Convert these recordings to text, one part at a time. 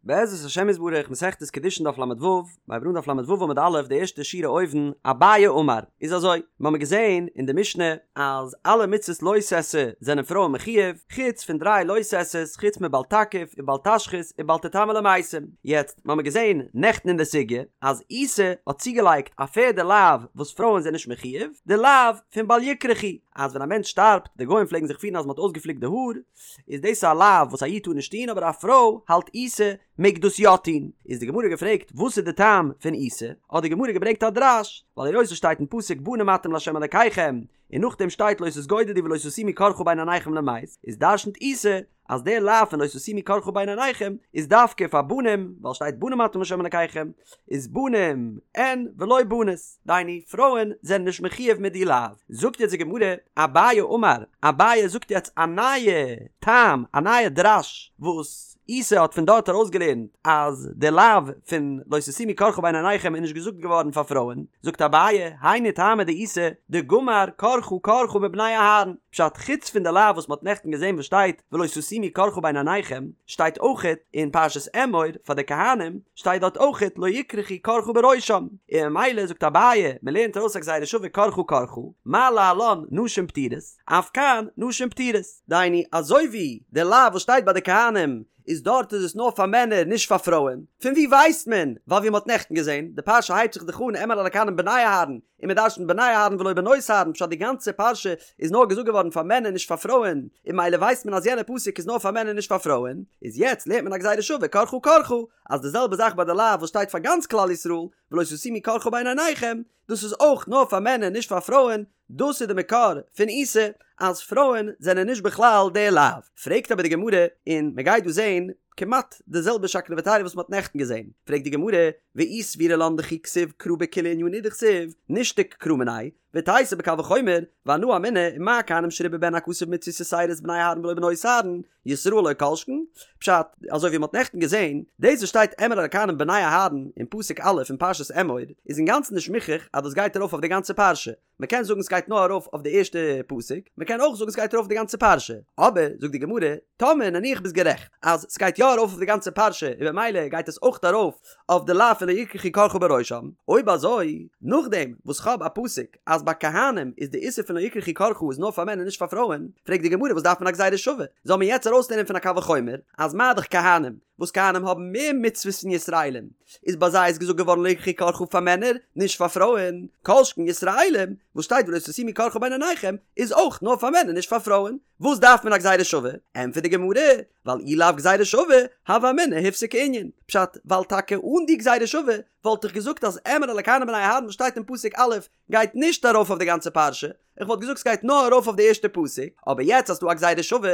בעזרת השם יתברך מסכת קידושין דף ל"ו, מ'הייבט אן דף ל"ו עמוד א' די ערשטע שורה אויבן, אביי אמר, איז אזוי, מ'האמיר געזען אין די משנה אז אלע מצוות לא תעשה זענען פרויען מחיוב, חוץ פון דריי לא תעשה'ס, חוץ מבל תקיף ובל תשחית ובל תטמא למתים. יעצט, מ'האמיר געזען נעכטן אין די סוגיא אז איסי האט צוגעלייגט א פערדע לאו וואס פרויען זענען נישט מחיוב, די לאו פון בל יקרחו, אז ווען א מענטש שטארבט, די גוים פלעגן זיך פירן אז מ'האט אויסגעפליקט די האר, איז דאס א לאו וואס א איד טאר נישט טון אבער א פרוי האלט איסי מעג דאס יא טון, איז די גמרא געפרעגט וואס איז די טעם פון איסי, האט די גמרא געברענגט א דרש, ווייל היות עס שטייט אין פסוק בנים אתם לה' אלקיכם, און נאכדעם שטייט לא תתגודדו ולא תשימו קרחה בין עיניכם למת, איז דרשנ'ט איסי אז דער לאו פון לא תשימו קרחה בין עיניכם איז דווקא פאר בנים, ווייל שטייט בנים אתם לה' אלקיכם, איז בנים אין ולא בנות, דהיינו פרויען זענען נישט מחיוב מיט די לאו. זאגט יעצט די גמרא, אביי אמר, אביי זאגט יעצט א נייע טעם, א נייע דרש, וואס איסי האט פון דארט ארויסגעלערנט אז די לאו פון לא תשימו קרחה בין עיניכם איז נישט געזאגט געווארן פאר פרויען, זאגט אביי, היינו טעמא דאיסי, דגמר קרחה קרחה מבני אהרן, פשט חוץ פון די לאו וואס מ'האט נעכטן געזען וואס שטייט ולא תשימו קרחה בין עיניכם, שטייט אויכעט אין פרשת אמור פאר די כהנים, שטייט דארט אויכעט לא יקרחו קרחה בראשם, און ממילא זאגט אביי, מען לערנט ארויס א גזירה שווה קרחה קרחה, מה להלן נשים פטורות, אף כאן נשים פטורות. דהיינו, אזוי ווי די לאו וואס שטייט ביי די כהנים איז דארט איז עס נאר פאר מענער נישט פאר פרויען, פון ווי ווייסט מען? ווייל ווי מען האט נעכטן געזען, די פרשה הייבט זיך דאך אן אמור אל הכהנים בני אהרן, און מען דרשנ'ט בני אהרן ולא בנות אהרן פשט די גאנצע פרשה איז נאר געזאגט געווארן פאר מענער נישט פאר פרויען, און ממילא ווייסט מען אז יענע פסוק איז נאר פאר מענער נישט פאר פרויען, איז יעצט לערנט מען א גזירה שווה קרחה קרחה, אז די זעלבע זאך ביי די לאו וואס שטייט פאר גאנץ כלל ישראל, ולא תשימו קרחה בין עיניכם, דאס איז אויך נאר פאר מענער נישט פאר פרויען, דאס איז די מקור פון איסי אז פרויען זענען נישט בכלל די לאו. פרעגט אבער די גמרא, און מען גייט דא זען כמעט די זעלבע שקלא וטריא וואס מען האט נעכטן געזען, פרעגט די גמרא, ואי סבירא לן דכי כתיב קרא בכולהו ענינא הוא דכתיב נישתוק קרא מיניה, ותיתי בקל וחומר, ואנא אמינא ומה כהנים שריבה בהן הכתוב מצוות יתירות בני אהרן ולא בנות אהרן, ישראל לא כל שכן, פשט, אזוי ווי מ'האט נעכטן געזען, דאס וואס שטייט אמור אל הכהנים בני אהרן אין פסוק א' אין פרשת אמור, איז אינגאנצן נישט מוכרח אז דאס גייט ארויף אויף די גאנצע פרשה, מ'קען זאגן ס'גייט נאר ארויף אויף די ערשטע פסוק, מ'קען אויך זאגן ס'גייט ארויף אויף די גאנצע פרשה, אבער, זאגט די גמרא, טאמער נניח ביסט גערעכט אז ס'גייט יא ארויף אויף די גאנצע פרשה און במילא גייט עס אויך ארויף אויף די לאו פון לא יקרחו קרחה בראשם, אויב אזוי, נאכדעם וואס כ'האב א פסוק אז ביי כהנים איז די איסור פון לא יקרחו קרחה איז נאר פאר מענער נישט פאר פרויען, פרעגט די גמרא וואס דארף מען א גזירה שווה? זאל מען יעצט ארויסלערנען פון א קל וחומר אז מה דאך כהנים, וואס כהנים האבן מער מצוות פון ישראלים, איז ביי זיי איז געזאגט געווארן לא יקרחו קרחה פאר מענער, נישט פאר פרויען, כל שכן ישראלים, וואס שטייט ולא תשימו קרחה בין עיניכם, איז אויך נאר פאר מענער נישט פאר פרויען, וואס דארף מען א גזירה שווה? ענטפערט די גמרא, ווייל אי לאו גזירה שווה, הוה אמינא הפסיק הענין. פשט, ווייל טאקע אן די גזירה שווה, וואלט איך געזאגט אז אמור אל הכהנים בני אהרן וואס שטייט אין פסוק א' גייט נישט ארויף אויף די גאנצע פרשה, איך וואלט געזאגט סגייט נאר ארויף אויף די ערשטע פסוק, אבער יעצט אז ס'דא א גזירה שווה,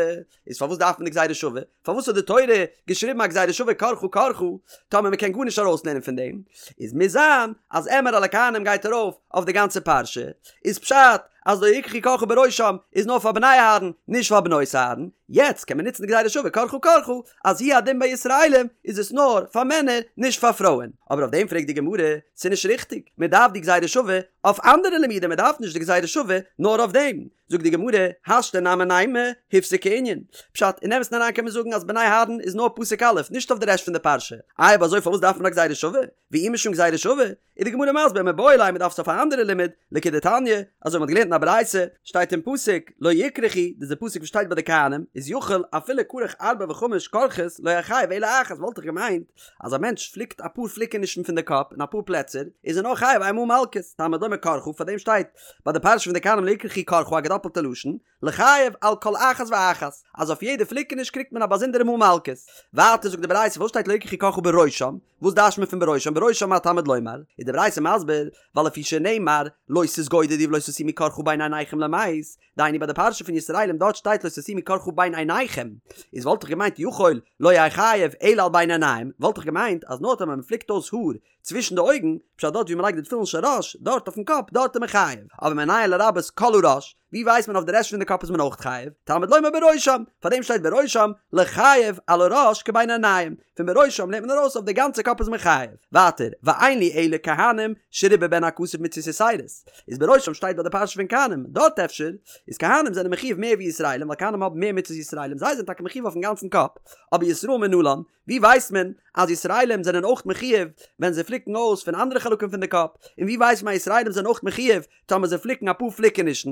איז פארוואס דארף מען די גזירה שווה? פארוואס האט די תורה געשריבן א גזירה שווה קרחה קרחה, טאמער מ'קען גארנישט ארויסלערנען פון דעם? איז מוז זיין אז אמור אל הכהנים גייט ארויף אויף די גאנצע פרשה, איז פשט אז לא יקרחו קרחה בראשם איז נאר פאר בני אהרן נישט פאר בנות אהרן, יעצט קען מען נוצן די גזירה שווה קרחה קרחה אז הוא הדין ביי ישראלים איז עס נאר פאר מענער נישט פאר פרויען, אבער אויף דעם פרעגט די גמרא, ס'איז נישט ריכטיג, מען דארף די גזירה שווה אויף אנדערע לימודים מען דארף נישט די גזירה שווה נאר אויף דעם, זאגט די גמרא, השתא נמי נימא, הפסיק הענין, פשט, אין אמת'ן אריין קען מען זאגן אז בני אהרן איז נאר פסוק א' נישט אויף די רעשט פון די פרשה, איי אויב אזוי פארוואס דארף מען א גזירה שווה? ואי משום גזירה שווה, איז די גמרא מסביר מיבעי ליה מ'דארף עס אויף א אנדערע לימוד, לכדתניא, אזוי מ'האט געלערנט אין א ברייתא, שטייט אין פסוק, לא יקרחו, דאס איז די פסוק וואס שטייט ביי די כהנים, איז יכול אפילו כרך ארבע וחמש כרכות לא יהא חייב אלא אחת וואלט איך געמיינט אז א מענטש פליקט אפאר פליקענישן פון די קאפ אין אפאר פלעצער איז ער נאר חייב איין מאל מלקות, תלמוד לומר קרחה פאר דעם שטייט ביי די פרשה פון די כהנים לא יקרחו קרחה א געדאפלטע לשון, לחייב על כל אחת ואחת, אז אויף יעדע פליקעניש קריגט מען א באזונדערע מאל מלקות. ווייטער זאגט די ברייתא פארוואס שטייט לא יקרחו קרחה בראשם? וואס דרש'ט מען פון בראשם? בראשם מה תלמוד לומר? איז די ברייתא מסביר, ווייל לפי שנאמר, לא תתגודדו ולא תשימו קרחה בין עיניכם למת, דהיינו ביי די פרשה פון ישראלים דארט שטייט לא תשימו קרחה בין עיניכם, איז וואלט איך געמיינט יכול לא יהא חייב אלא על בין העיניים, וואלט איך געמיינט אז נאר טאמער מען פליקט אויס האר צווישן די אויגן, פשט דארט ווי מען לייגט די תפילין של ראש, דארט אויפן קאפ, דארט איז מען חייב, אבער מנין לרבות כל הראש, ווי ווייסט מען אויף די רעשט פון די קאפ איז מען אויך חייב? תלמוד לומר בראשם, פארדעם שטייט בראשם, לחייב על הראש כבין העיניים, פון בראשם לערנט מען ארויס אויף די גאנצע קאפ איז מען חייב. ווייטער, ואין לי אלא כהנים שריבה בהן הכתוב מצוות יתירות, איז בראשם שטייט ביי די פרשה פון כהנים, דארט אפשר איז כהנים זענען מחיוב מער ווי ישראלים ווייל כהנים האבן מער מצוות ישראלים זיי זענען טאקע מחיוב אויפן גאנצן קאפ, אבער ישראל מנלן? ווי ווייסט מען אז ישראלים זענען אויך מחיוב ווען זיי פליקן אויס פון אנדערע חלקים פון די קאפ, און ווי ווייסט מען אז ישראלים זענען אויך מחיוב טאמער זיי פליקן אפאר פליקענישן?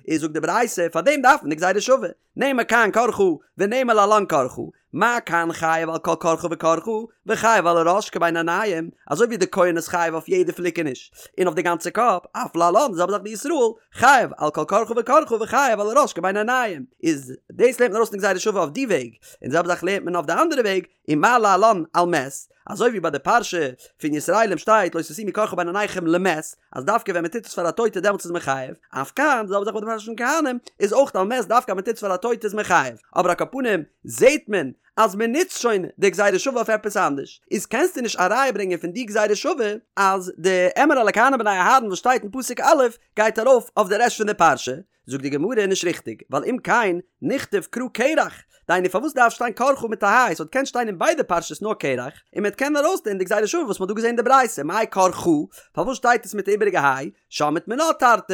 איז זאגט די ברייתא פאר דעם דארף מען די גזירה שווה, נאמר כאן קרחה ונאמר להלן קרחה, מה כאן חייב על כל קרחה וקרחה, וחייב על הראש כבין העיניים, אזוי ווי די כהן איז חייב אויף יעדע פליקעניש און אויף די גאנצע קאפ, אף להלן די זעלבע זאך די ישראל, חייב על כל קרחה וקרחה וחייב על הראש כבין העיניים, איז דאס לערנט מען ארויס פון גזירה שווה אויף די וועג, און די זעלבע זאך לערנט מען אויף די אנדערע וועג, ומה להלן על מת, אזוי ווי ביי די פרשה פון ישראלים שטייט לא תשימו קרחה בין עיניכם למת, אז דווקא ווען מען טוט עס פאר א טויטע דעמאלטס איז מען חייב, אף כאן, די זעלבע זאך ביי די פרשה פון כהנים, איז אויך על מת דווקא אז מען טוט עס פאר א טויטע איז מען חייב, אבער על כל פנים זעהט מען אז מען נוצט שוין די גזירה שווה אויף עפעס אנדערש, איז קענסטו נישט א ראיה ברענגען פון די גזירה שווה אז די אמור אל הכהנים בני אהרן וואס שטייט אין פסוק א' גייט ארויף אויף די רעשט פון די פרשה, זאגט די גמרא נישט ריכטיג, ווייל אם כן נכתוב קרא קרח, דהיינו פארוואס דארף שטיין קרחה מיט א ה', ס'וואלט געקענט שטיין אין ביידע פרשות נאר קרח, און מ'העט קענען ארויסלערנען די גזירה שווה וואס מ'האט דא געזען אין די ברייתא, מאי קרחה, פארוואס שטייט עס מיט די איבעריגע ה', שמעת מינה תרתי,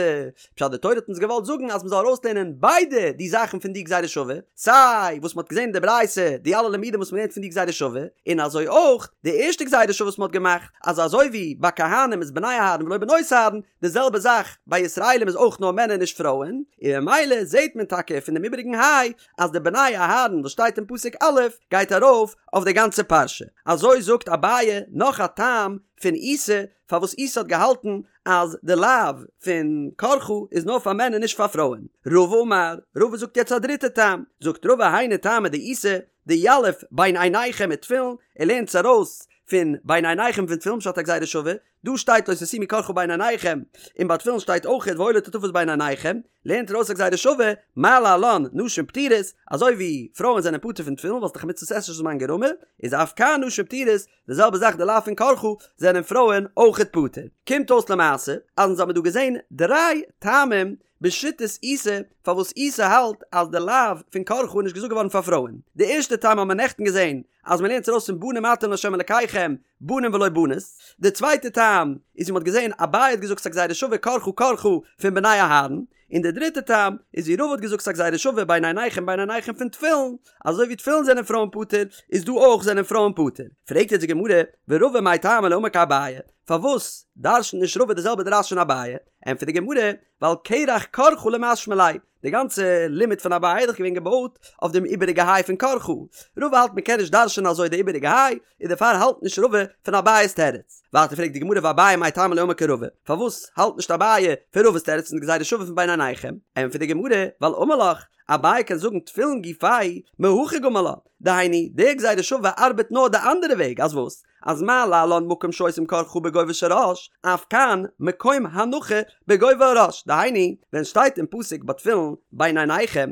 פשט די תורה האט אונז געוואלט זאגן אז מ'זאל ארויסלערנען ביידע די זאכן פון די גזירה שווה, סיי וואס מ'האט געזען אין די ברייתא, די אלע לימודים וואס מ'לערנט פון די גזירה שווה, און אזוי אויך די ערשטע גזירה שווה וואס מ'האט געמאכט, אז אזוי ווי ביי כהנים איז בני אהרן ולא בנות אהרן, די זעלבע זאך ביי ישראלים איז אויך נאר מענער נישט פרויען, און ממילא זעהט מען טאקע פון דעם איבעריגן היי אז די בני אהרן וואס שטייט אין פסוק א' גייט ארויף אויף די גאנצע פרשה. אזוי זאגט אביי נאך א טעם פון איסי פארוואס איסי האט געהאלטן אז די לאו פון קרחה איז נאר פאר מענער נישט פאר פרויען. רבא אמר, רבא זאגט יעצט א דריטע טעם, זאגט רבא היינו טעמא דאיסי דיליף בין עיניכם מתפילין, ער לערנט עס ארויס פון בין עיניכם פון תפילין פשט א גזירה שווה, דא שטייט לא תשימו קרחה בין עיניכם, און ביי תפילין שטייט אויכעט והיו לטוטפות בין עיניכם, לערנט ער ארויס א גזירה שווה, מה להלן נשים פטורות, אזוי ווי פרויען זענען פטור פון תפילין ווייל ס'איז דאך א מצות עשה שהזמן גרמא, איז אף כאן נשים פטורות, די זעלבע זאך די לאו פון קרחה, זענען פרויען אויכעט פטור. קומט אויס למעשה, אז אונז האבן דא געזען דריי טעמים בשיטת איסי, פארוואס איסי האלט אז די לאו פון קרחה איז נישט געזאגט געווארן פאר פרויען. די ערשטע טעם האבן מיר נעכטן געזען, אז מ'לערנט עס ארויס פון בנים אתם לה' אלקיכם, בנים ולא בנות. די צווייטע טעם איז ווי מ'האט געזען אביי האט געזאגט ס'א גזירה שווה קרחה קרחה פון בני אהרן, און די דריטע טעם איז ווי רבא האט געזאגט ס'א גזירה שווה בין עיניכם בין עיניכם פון תפילין, אזוי ווי תפילין זענען פרויען פטור איז דא אויך זענען פרויען פטור. פרעגט יעצט די גמרא, ורבא מאי טעמא לא אמר כאביי, פארוואס דרש'נט נישט רבא די זעלבע דרש פון אביי? ענטפערט די גמרא, ווייל קרח קרחה לא משמע ליה, די גאנצע לימוד פון אביי איז דאך געווען געבויט אויף דעם איבעריגע היי פון קרחה. רבא האלט מען קען נישט דרש'ענען אזוי די איבעריגע היי, און דערפאר האלט נישט רבא פון אביי'ס תירוץ. ווייטער פרעגט די גמרא ואביי מאי טעמא לא אמר כרבא, פארוואס האלט נישט אביי פון רבא'ס תירוץ פון די גזירה שווה פון בין עיניכם? ענטפערט די גמרא, ווייל אמר לך, אביי קען זאגן תפילין גופייהו מהכא גמר לה, דהיינו, די גזירה שווה ארבעט נאר די אנדערע וועג, אז וואס? אז מה להלן מקום שעושים קרחה בגובה של ראש, אף כאן מקום הנחה בגובה הראש, דהיינו, ווען שטייט אין פסוק ביי תפילין בין עיניכם,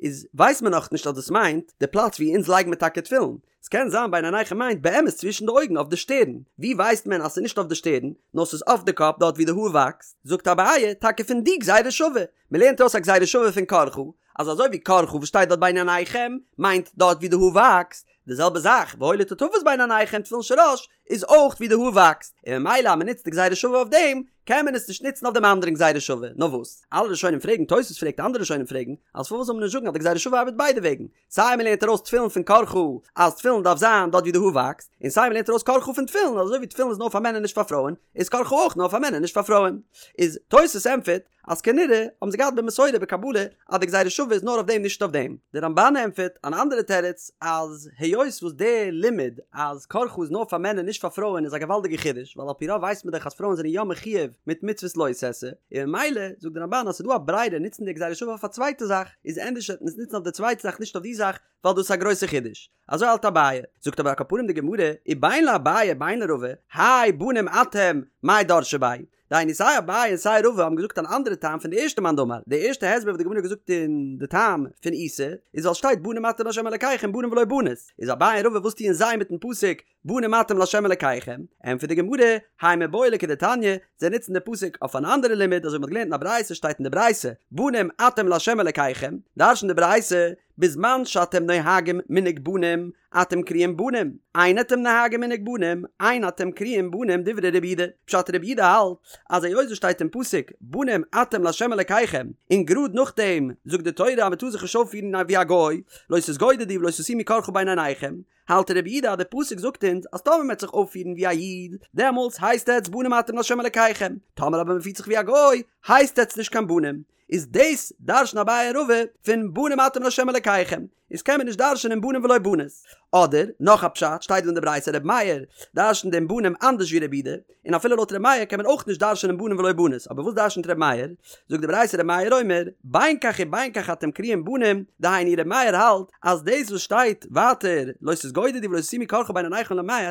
איז ווייסט מען נאך נישט אז דאס מיינט די פלאץ ווי אונז לייגן מיר טאקע תפילין, ס'קען זיין בין עיניכם מיינט באמת צווישן די אויגן אויף די שטערן, ווי ווייסט מען אז ס'איז נישט אויף די שטערן, נאר ס'איז אויף די קאפ דארט ווי די האר וואקסט, זאגט אביי, טאקע פון די גזירה שווה, מ'לערנט ארויס א גזירה שווה פון קרחה, אז אזוי ווי קרחה וואס שטייט דארט בין עיניכם מיינט דארט ווי די האר וואקסט, די זעלבע זאך והיו לטוטפות בין עיניכם תפילין של ראש איז אויך ווי די האר וואקסט, און ממילא אז מען נוצט די גזירה שווה אויף דעם, קען מען עס נישט נוצן אויף דעם אנדערן גזירה שווה, נאר וואס? אלע ראשונים פרעגן, תוס' פרעגט, אנדערע ראשונים פרעגן, אז פארוואס זאל מען נישט זאגן אז די גזירה שווה ארבעט ביידע וועגן, סיי מען לערנט ארויס תפילין פון קרחה אז תפילין דארף זיין דארט ווי די האר וואקסט, און סיי מען לערנט ארויס קרחה פון תפילין אז אזוי ווי תפילין איז נאר פאר מענער נישט פאר פרויען, איז קרחה אויך נאר פאר מענער נישט פאר פרויען. איז תוס' ענטפערט אז כנראה האבן זיי געהאט במסורה בקבלה אז די גזירה שווה איז נאר אויף דעם נישט אויף דעם. די רמב"ן ענטפערט אן אנדערע תירוץ אז היות וואס די לימוד אז קרחה איז נאר פאר מענער נישט פאר פרויען איז א געוואלדיגע חידוש ווייל על פי רוב ווייסט מען דאך אז פרויען זענען יא מחיוב מיט מצוות לא תעשה און ממילא זאגט די רמב"ן אז ס'איז דא א ברירה נוצן די גזירה שווה אויף א צווייטע זאך איז ענדערש וועט מען עס נוצן אויף די צווייטע זאך נישט אויף די זאך ווייל דאס איז א גרויסע חידוש. אזוי האלט אביי. זאגט אבער על כל פנים די גמרא ובין לאביי בין לרבא האי בנים אתם מאי דרשי ביה דהיינו סיי אביי און סיי רבא האבן געזאגט אן אנדערע טעם פון די ערשטע מאן דאמר, די ערשטע הסבר וואס די גמרא האט געזאגט אין די טעם פון איסי איז ווייל שטייט בנים אתם לה' אלקיכם בנים ולא בנות, איז אביי און רבא וואס טוען זיי מיטן פסוק בנים אתם לה' אלקיכם, ענטפערט די גמרא, האי מיבעי לכדתניא, זיי נוצן די פסוק אויף אן אנדערע לימוד אזוי ווי מ'האט געלערנט אין א ברייתא שטייט אין די ברייתא בנים אתם לה' אלקיכם, דרש'נט די ברייתא בזמן שאתם נוהגים מנהג בנים אתם קרויים בנים, אין אתם נוהגים מנהג בנים, אין אתם קרויים בנים דברי רבי יהודה, פשט רבי יהודה האלט אז היות עס שטייט אין פסוק בנים אתם לה' אלקיכם און גראד נאכדעם זאגט די תורה אז מען טאר זיך נישט אויפפירן ווי א גוי, לא תתגודדו ולא תשימו קרחה בין עיניכם. האלט רבי יהודה אז די פסוק זאגט אונז אז טאמער מ'עט זיך אויפפירן ווי א איד, דעמאלטס הייסט עטץ בנים אתם לה' אלקיכם, טאמער אבער מ'פירט זיך ווי א גוי, הייסט עטץ נישט קיין בנים. איז דאס דרש'ן אביי און רבא פון בנים אתם לה' אלקיכם, איז קען מען נישט דרש'נען בנים ולא בנות. אדער, נאך א פשט, שטייט דא אין די ברייתא ר' מאיר דרש'נט דעם בנים אנדערש ווי רבי יהודה, און אפילו לויט ר' מאיר קען מען אויך נישט דרש'נען בנים ולא בנות, אבער וואס דרש'נט ר' מאיר? זאגט די ברייתא ר' מאיר אומר, בין כך ובין כך אתם קרויים בנים, דהיינו ר' מאיר האלט אז דאס וואס שטייט ווייטער לא תתגודדו ולא תשימו קרחה בין עיניכם למת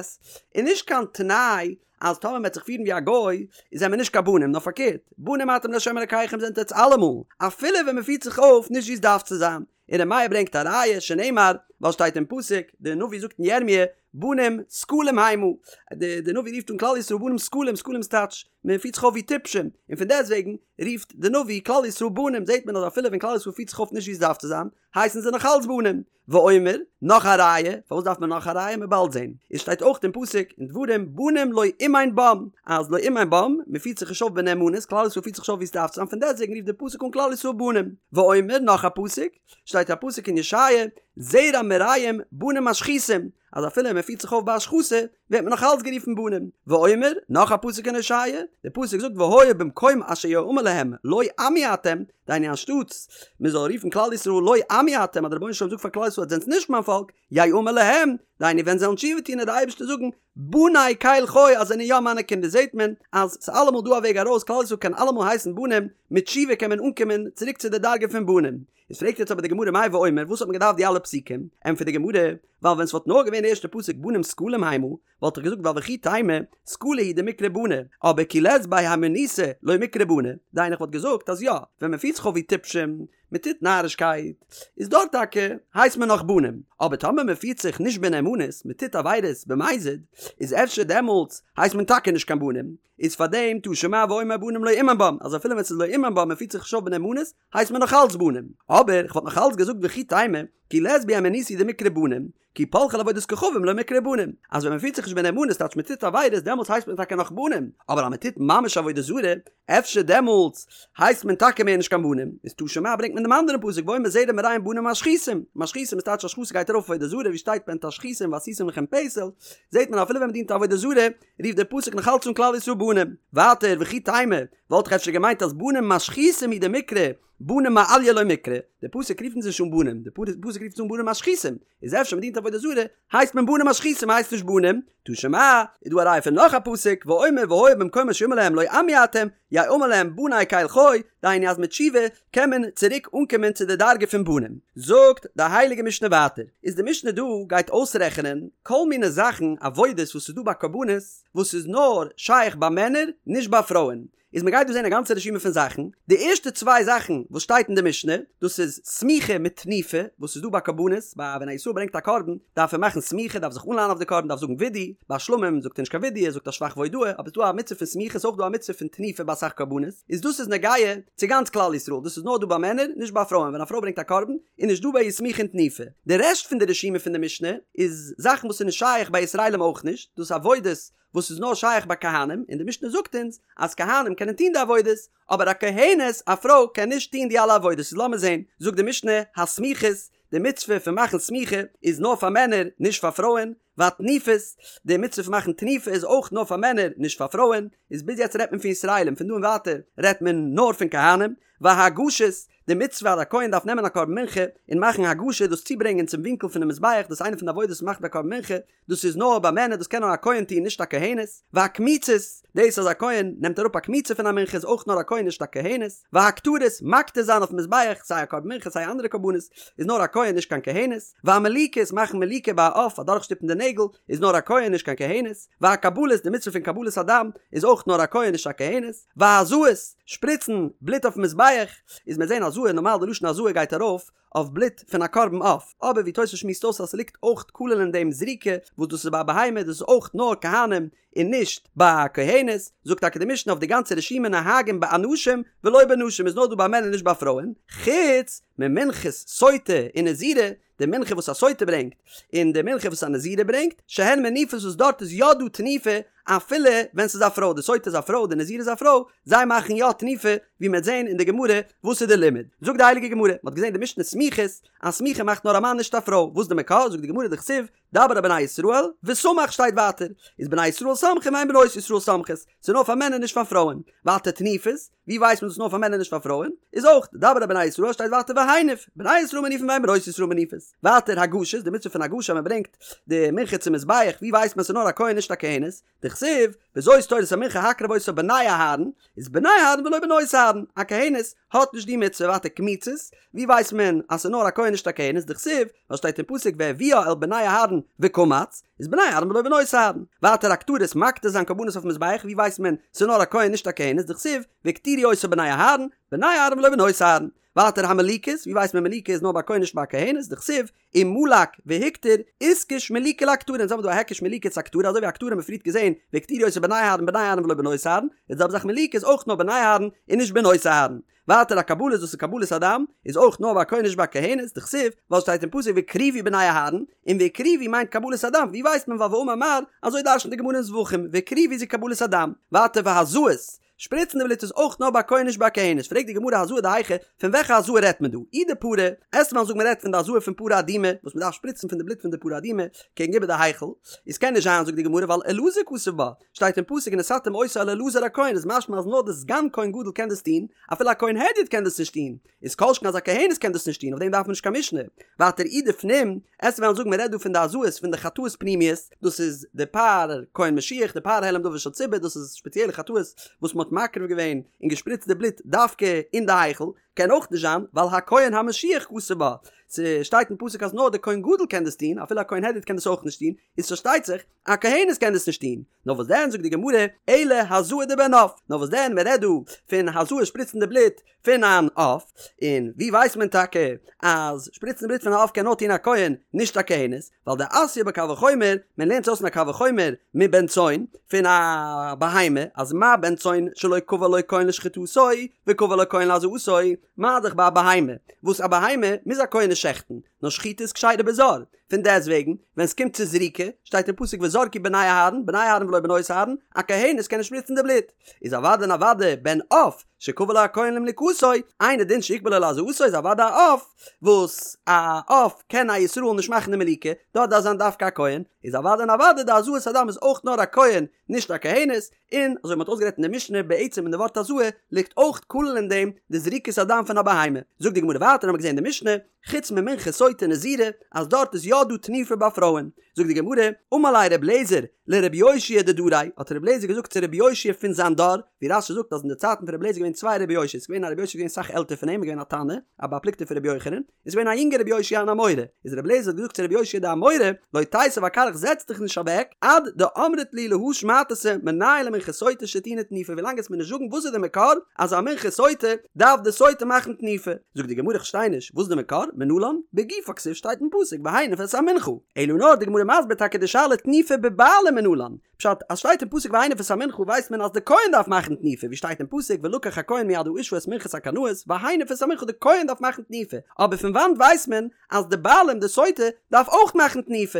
איז נישט קיין תנאי אז טאמער מ'וועט זיך פירן ווי א גוי איז זעמער נישט קיין בנים נאר פארקערט בנים אתם לה' אלקיכם זענט עטץ אלעמאל אפילו ווען מ'פירט זיך אויף נישט ווי עס דארף צו זיין. און ר' מאיר ברענגט א ראיה שנאמר ווייל שטייט אין פסוק די נביא זאגט אין ירמיה בנים סכלים המה די די נביא רופט אן כלל ישראל בנים סכלים סכלים איז טייטש מען פירט זיך אויף ווי טיפשים און פון דעסטוועגן רופט די נביא כלל ישראל בנים זעט מען אז אפילו ווען כלל ישראל פירט זיך אויף נישט ווי עס דארף צו זיין הייסן זיי נאך אלץ בנים ואומר, נאך א ראיה, פארוואס דארף מען נאך א ראיה? מ'עט באלד זען. עס שטייט אויך אין פסוק אין דברים בנים לא אומן בם, אז לא אומן בם, מען פירט זיך נישט אויף בנאמנות, כלל ישראל פירט זיך נישט אויף ווי עס דארף צו זיין, פון דעסטוועגן רופט דער פסוק אן כלל ישראל בנים. ואומר, נאך א פסוק, שטייט א פסוק אין ישעיה, זרע מרעים בנים משחיתים, אז אפילו מען פירט זיך אויף בהשחתה, ווערט מען נאך אלץ גערופן בנים. ואומר, נאך א פסוק אין הושע, דער פסוק זאגט והיה במקום אשר יאמר להם לא עמי אתם, דהיינו אנשטאטס מען זאל רופן כלל ישראל לא עמי אתם אז דער רבונו של עולם זאגט פאר כלל ישראל עטס זענטס נישט מיין פאלק, יאמר להם, דהיינו ווען זיי וועלן תשובה טון וועט דער אייבערשטער זאגן, בני קל חי אז זענען יא מיינע קינדער זעט מען אז ס'איז אלעמאל דא א וועג ארויס כלל ישראל קען אלעמאל הייסן בנים, מיט תשובה קען מען אנקומען צוריק צו די דרגה פון בנים. איז פרעגט יעצט אבער די גמרא מאי ואומר וואס האט מען געדארפט די אלע פסוקים? ענטפערט די גמרא, ווייל ווען ס'וואלט נאר געווען די ערשטע פסוק בנים סכלים המה, וואלט איך געזאגט ווייל וכי תימא סכלי הוא דמיקרי בני, אבער כי לית ביה הימנותא לא מיקרי בני, דהיינו איך וואלט געזאגט אז יא, ווען מען פירט זיך אויף ווי טיפשים, מען טוט נארישקייט, איז דארט טאקע הייסט מען נאך בנים, אבער טאמער מען פירט זיך נישט בנאמנות, מען טוט עבירות במזיד, איז אפשר דעמאלטס הייסט מען טאקע נישט קיין בנים, איז פארדעם תא שמע ואומר בנים לא אומן בם, אז אפילו ווען ס'איז לא אומן בם מען פירט זיך נישט אויף בנאמנות, הייסט מען נאך אלץ בנים. אבער איך וואלט נאך אלץ געזאגט וכי תימא, כי לית בהו הימנותא הוא דמיקרי בנים, כי פלחי לעבודת כוכבים לא מיקרי בנים, אז ווען מען פירט זיך נישט בנאמנות טייטש מען טוט עבירות דעמאלטס הייסט מען טאקע נאך בנים, אבער אז מען טוט ממש עבודה זרה, אפשר דעמאלטס הייסט מען טאקע מער נישט קיין בנים, איז תא שמע ברענגט מען דעם אנדערן פסוק ואומר זרע מרעים בנים משחיתים, משחיתים איז טייטש השחתה גייט ארויף אויף עבודה זרה ווי שטייט פן תשחיתון ועשיתם לכם פסל, זעט מען אפילו ווען מען דינט עבודה זרה רופט דער פסוק נאך אלץ אן כלל ישראל בנים, ווייטער וכי תימא וואלט איך אפשר געמיינט אז בנים משחיתים הוא דמיקרי, בנים מעליא לא מיקרי, די פסוק רופט אונז נישט אן בנים, די פסוק רופט אונז אן בנים משחיתים, איז אפשר מ'דינט עבודה זרה, הייסט מען בנים משחיתים הייסט נישט בנים, תא שמע, איז דא א ראיה פון נאך א פסוק, ואומר והיה במקום אשר יאמר להם לא עמי אתם, יאמר להם בני קל חי, דהיינו אז מיט תשובה קען מען צוריק אנקומען צו די דרגה פון בנים. זאגט די הייליגע משנה ווייטער, איז די משנה דא גייט אויסרעכענען כל מיני זאכן עבודות וואס איז דא ביי קרבנות וואס איז נאר שייך ביי מענער נישט ביי פרויען, איז מען גייט דא זען א גאנצע רשימה פון זאכן, די ערשטע צוויי זאכן וואס שטייט אין די משנה, דאס איז סמיכה מיט תנופה, וואס איז דא ביי קרבנות, ביי ווען א ישראל ברענגט א קרבן, דארף ער מאכן סמיכה, דארף זיך אנלאנען אויף די קרבן, דארף זאגן וידוי, ביי שלמים זאגט ער נישט קיין וידוי, ער זאגט א שבח והודאה, אבער ס'איז דא א מצוה פון סמיכה, ס'איז אויך דא א מצוה פון תנופה ביי אסאך קרבנות, איז דאס איז נוגע צו גאנץ כלל ישראל, דאס איז נאר דא ביי מענער, נישט ביי פרויען, ווען א פרוי ברענגט א קרבן, איז נישט דא ביי איר סמיכה און תנופה. די רעשט פון די רשימה פון די משנה, איז זאכן וואס איז נישט שייך ביי ישראלים אויך נישט, דאס עבודות וואס איז נאר שייך ביי כהנים, און די משנה זאגט אונז אז כהנים קענען טון די עבודות, אבער א כהנת, א פרוי, קען נישט טון די אלע עבודות, איז לאמיר זען, זאגט די משנה, הסמיכות, די מצוה פון מאכן סמיכה איז נאר פאר מענער, נישט פאר פרויען, והתנופות, די מצוה פון מאכן תנופה איז אויך נאר פאר מענער, נישט פאר פרויען, איז ביז יעצט רעדט מען פון ישראלים, פון דא און ווייטער רעדט מען נאר פון כהנים, והגשות, די מצוה אז א כהן דארף נעמען א קרבן מנחה און מאכן הגשה דאס צוברענגען צום ווינקל פונעם מזבח, דאס איז איינע פון די עבודות וואס מ'מאכט ביי קרבן מנחה, דאס איז נאר ביי מענער דאס קען נאר א כהן טון נישט א כהנת, והקמיצות, דאס אז א כהן נעמט אראפ א קמיצה פון א מנחה איז אויך נאר א כהן נישט א כהנת, והקטרות, מקטיר זיין אויפן מזבח סיי א קרבן מנחה סיי אנדערע קרבנות איז נאר א כהן נישט קיין כהנת, והמליקות, מאכן מליקה ביי א עוף אדורכשטופן די נעגל איז נאר א כהן נישט קיין כהנת, והקבלות, די מצוה פון קבלת הדם איז אויך נאר א כהן נישט א כהנת, והזאות, שפריצן בלוט אויפן מזבח, איז מיר זעהן הזאה נארמאל די לשון הזאה גייט ארויף אויף בלוט פון א קרבן עוף, אבער ווי תוס' שמועסט אויס אז ס'ליגט אויך כולל אין דעם זריקה, וואס דאס איז ביי א בהמה, דאס איז אויך נאר כהנים און נישט ביי א כהנת, זאגט טאקע די משנה אויף די גאנצע רשימה נוהגין באנשים ולא בנשים איז נאר דא ביי מענער נישט ביי פרויען, חוץ ממנחת סוטה ונזירה, די מנחה וואס א סוטה ברענגט, און די מנחה וואס א נזירה ברענגט, שהן מניפות וואס דארט איז יא דא תנופה, אפילו ווען ס'איז א פרוי, די סוטה איז א פרוי, די נזירה איז א פרוי, זיי מאכן יא תנופה, ווי מ'וועט זען אין די גמרא וואס איז די לימוד. זאגט די הייליגע גמרא, מ'האט געזען די משנה סמיכות, אז סמיכה מאכט נאר א מאן נישט א פרוי, וואס איז די מקור? זאגט די גמרא דכתיב, דבר אל בני ישראל, וסמך שטייט ווייטער, איז בני ישראל סומכין ואין בנות ישראל סומכות, ס'איז נאר פאר מענער נישט פאר פרויען. ווייטער תנופות, ווי ווייסט מען דאס נאר פאר מענער נישט פאר פרויען? איז אויך, דבר אל בני ישראל שטייט ווייטער והניף, בני ישראל מניפין ואין בנות ישראל מניפות. ווייטער הגשות, די מצוה פון הגשה אז מען ברענגט די מנחה צום מזבח, ווי ווייסט מען ס'איז נאר א כהן נישט א כהנת? דכתיב, וזאת תורת המנחה הקרב אותה בני אהרן, איז בני אהרן ולא בנות אהרן, א כהנת האט נישט די מצוה, ווייטער קמיצות, ווי ווייסט מען אז ס'איז נאר א כהן נישט א כהנת, דכתיב, ווייל שטייט אין פסוק והביאה אל בני אהרן וקמץ, איז בני אהרן ולא בנות אהרן. ווייטער הקטרות, מקטיר זיין קרבנות אויפן מזבח, ווי ווייסט מען ס'איז נאר א כהן נישט א כהנת, דכתיב, והקטירו אותה בני אהרן, בני אהרן ולא בנות אהרן. ווייטער המליקות, ווי ווייסט מען מליקה איז נאר ביי א כהן נישט ביי א כהנת, דכתיב, ומלק והקטיר, איתקש מליקה להקטרה, אונז האבן דא א היקש מליקה צו הקטרה, אזוי ווי הקטרה האבן מיר פריערט געזען, והקטירו אותה בני אהרן בני אהרן ולא בנות אהרן, איז די זעלבע זאך מליקה איז אויך נאר בני אהרן און נישט בנות אהרן. ווייטער הקבלות דאס איז קבלת הדם, איז אויך נאר ביי א כהן נישט ביי א כהנת, דכתיב, ווייל שטייט אין פסוק והקריבו בני אהרן, און והקריבו מיינט קבלת הדם, ווי ווייסט מען ווייל ואמר מר, אזוי דרש'נט די גמרא אין זבחים, והקריבו איז קבלת הדם. ווייטער והזאות, שפריצן די בלוט איז אויך נאר ביי א כהן נישט ביי א כהנת, פרעגט די גמרא הזאה דהיכא, פון וועלכע הזאה רעדט מען דא? אי דפרה, עסט מען זאגן מען רעדט פון די הזאה פון פרה אדומה, וואס מען דארף שפריצן פון די בלוט פון די פרה אדומה קעגן איבער די היכל, איז קען נישט זיין זאגט די גמרא ווייל אלעזר כתיב בה, שטייט אין פסוק ונתתם אותה אל אלעזר הכהן איז משמע אז נאר די סגן כהן גדול קען דאס טון, אפילו א כהן הדיוט קען דאס נישט טון, איז כל שכן אז א כהנת קען דאס נישט טון, אויף דעם דארף מען נישט קיין משנה. ווייטער אי דפנים, עסט וועלן זאגן מען רעדט דא פון די הזאות פון די חטאות פנימיות, דאס איז די פר כהן משיח, די פר העלם דבר של ציבור, דאס איז שפעציעלע חטאות וואס מען האט מקריב געווען און געשפריצט די בלוט דווקא אין די היכל, קען אויך נישט זיין, ווייל הכהן המשיח כתיב בה, ס'שטייט אין פסוק אז נאר די כהן גדול קען דאס טון, אפילו א כהן הדיוט קען דאס אויך נישט טון, איז פארשטייט זיך א כהנת קען דאס נישט טון. נאר וואס דען זאגט די גמרא, אלא הזאה דבן עוף, נאר וואס דען מען רעדט דא פון הזאה שפריצן די בלוט פון אן עוף, און ווי ווייסט מען טאקע אז שפריצן די בלוט פון א עוף קען נאר טון א כהן נישט א כהנת, ווייל דאתיא בקל וחומר, מען לערנט עס אויס אין א קל וחומר מבן צאן, פון א בהמה, אז מה בן צאן שלא קבע לו כהן לשחיטתו וקבע לו כהן להזאתו, מה דאך ביי א בהמה, וואס א בהמה מוז א כהן נישט שעכטן, נאר שחיטה איז כשרה בזר, פון דעסט וועגן, ווען ס'קומט צו זריקה, שטייט אין פסוק וזרקו בני אהרן, בני אהרן ולא בנות אהרן, א כהנת קען נישט שפריצן די בלוט. איז אוודאי און אוודאי בן עוף, שקבע לו הכהן למליקתו, אינו דין שיקבע לו להזאתו איז אוודאי א עוף, וואס א עוף קען א ישראל נישט מאכן די מליקה, דארט דארף זיין דווקא א כהן, איז אוודאי און אוודאי די הזאת הדם איז אויך נאר א כהן, נישט א כהנת, און אזוי מ'האט אויסגערעדט אין די משנה בעצם אין די ווארט הזאה ליגט אויך כולל אין דעם די זריקת הדם פון א בהמה. זאגט די גמרא ווייטער האמיר געזען אין די משנה, חוץ ממנחת סוטה נזירה, אז דארט איז יא דא תנופה ביי פרויען. זאגט די גמרא, אמר ליה ר' לעזער לר' יאשיה דדריה, האט ר' לעזער געזאגט צו ר' יאשיה פון זיין דור, ווי רש"י זאגט אז אין די צייטן פון ר' לעזער איז געווען צוויי ר' יאשיה'ס, ס'איז געווען א ר' יאשיה געווען אסאך עלטער פון אים, איז געווען א תנא, א בעל פלוגתא פון ר' יוחנן, איז געווען א יונגער רבי יאשיה אן אמורא, איז רבי אליעזר האט געזאגט צו רבי יאשיה די אמורא, לא תיתיב אכרעך זעץ דיך נישט אוועק, עד דאמרת לי להא שמעתתא מנין למנחת סוטה שטעונה תנופה ווילאנג עסט מיר נישט זאגן וואס איז די מקור אז א מנחת סוטה דארף די סוטה מאכן תנופה, זאגט די גמרא איך פארשטיי נישט, וואס איז די מקור, מנלן, בגופה כתיב שטייט אין פסוק והניף את המנחה, אלא נאר די גמרא מסביר טאקע די שאלה תנופה בבעלים מנלן, פשט, אז שטייט אין פסוק והניף את המנחה ווייסט מען אז די כהן דארף מאכן תנופה, ווי שטייט אין פסוק ולקח הכהן מיד האשה את מנחת הקנאות והניף את המנחה די כהן דארף מאכן תנופה, אבער פון וואנט ווייסט מען אז די בעלים די סוטה דארף אויך מאכן תנופה?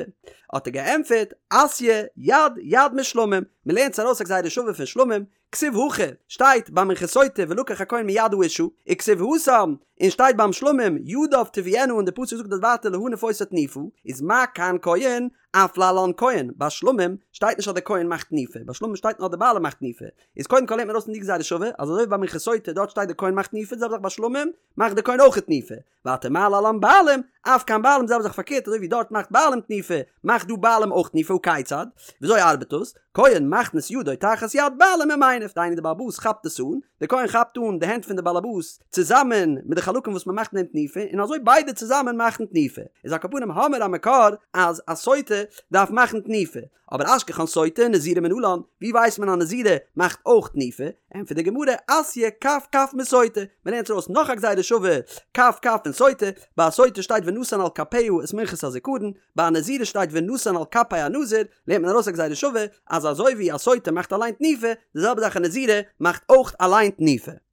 האט ער געענטפערט, אתיא יד יד משלמים, מען לערנט עס ארויס א גזירה שווה פון שלמים, כתיב הכא, שטייט ביי מנחת סוטה ולקח הכהן מיד האשה, וכתיב התם, און שטייט ביים שלמים ידיו תביאינה און די פסוק זאגט דארט ווייטער להניף אותה תנופה, איז מה כאן כהן, אף להלן כהן, ביי שלמים שטייט נישט אז די כהן מאכט תנופה, ביי שלמים שטייט נאר די בעלים מאכט תנופה, איז קודם כל לערנט מען ארויס פון די גזירה שווה אז אזוי ווי ביי מנחת סוטה דארט שטייט די כהן מאכט תנופה די זעלבע זאך ביי שלמים מאכט די כהן אויך תנופה, ווייטער מה להלן בעלים, אף כאן בעלים די זעלבע זאך פארקערט אזוי ווי דארט מאכט בעלים תנופה מאכט דא בעלים אויך תנופה הא כיצד? וויאזוי ארבעט דאס? כהן מכניס ידו תחת יד בעלים ומניף, דהיינו די בעל הבית כאפט עס אן, די כהן כאפט אן די הענט פון די בעל הבית צוזאמען מיט די חלקים וואס מען מאכט אין דעם תנופה און אזוי ביידע צוזאמען מאכן תנופה, איז על כל פנים האמיר א מקור אז א סוטה דארף מאכן תנופה, אבער אשכחן סוטה נזירה מנלן, ווי ווייסט מען א נזירה מאכט אויך תנופה? ענטפערט די גמרא, אתיא כף כף מסוטה, מען לערנט ארויס נאך א גזירה שווה, כף כף פון סוטה, ביי א סוטה שטייט ונתן על כפיה את מנחת הזכרון, ביי א נזירה שטייט ונתן על כפי הנזיר, לערנט מען ארויס א גזירה שווה, אז אזוי ווי א סוטה מאכט אליין תנופה, די זעלבע זאך א נזירה מאכט אויך אליין תנופה.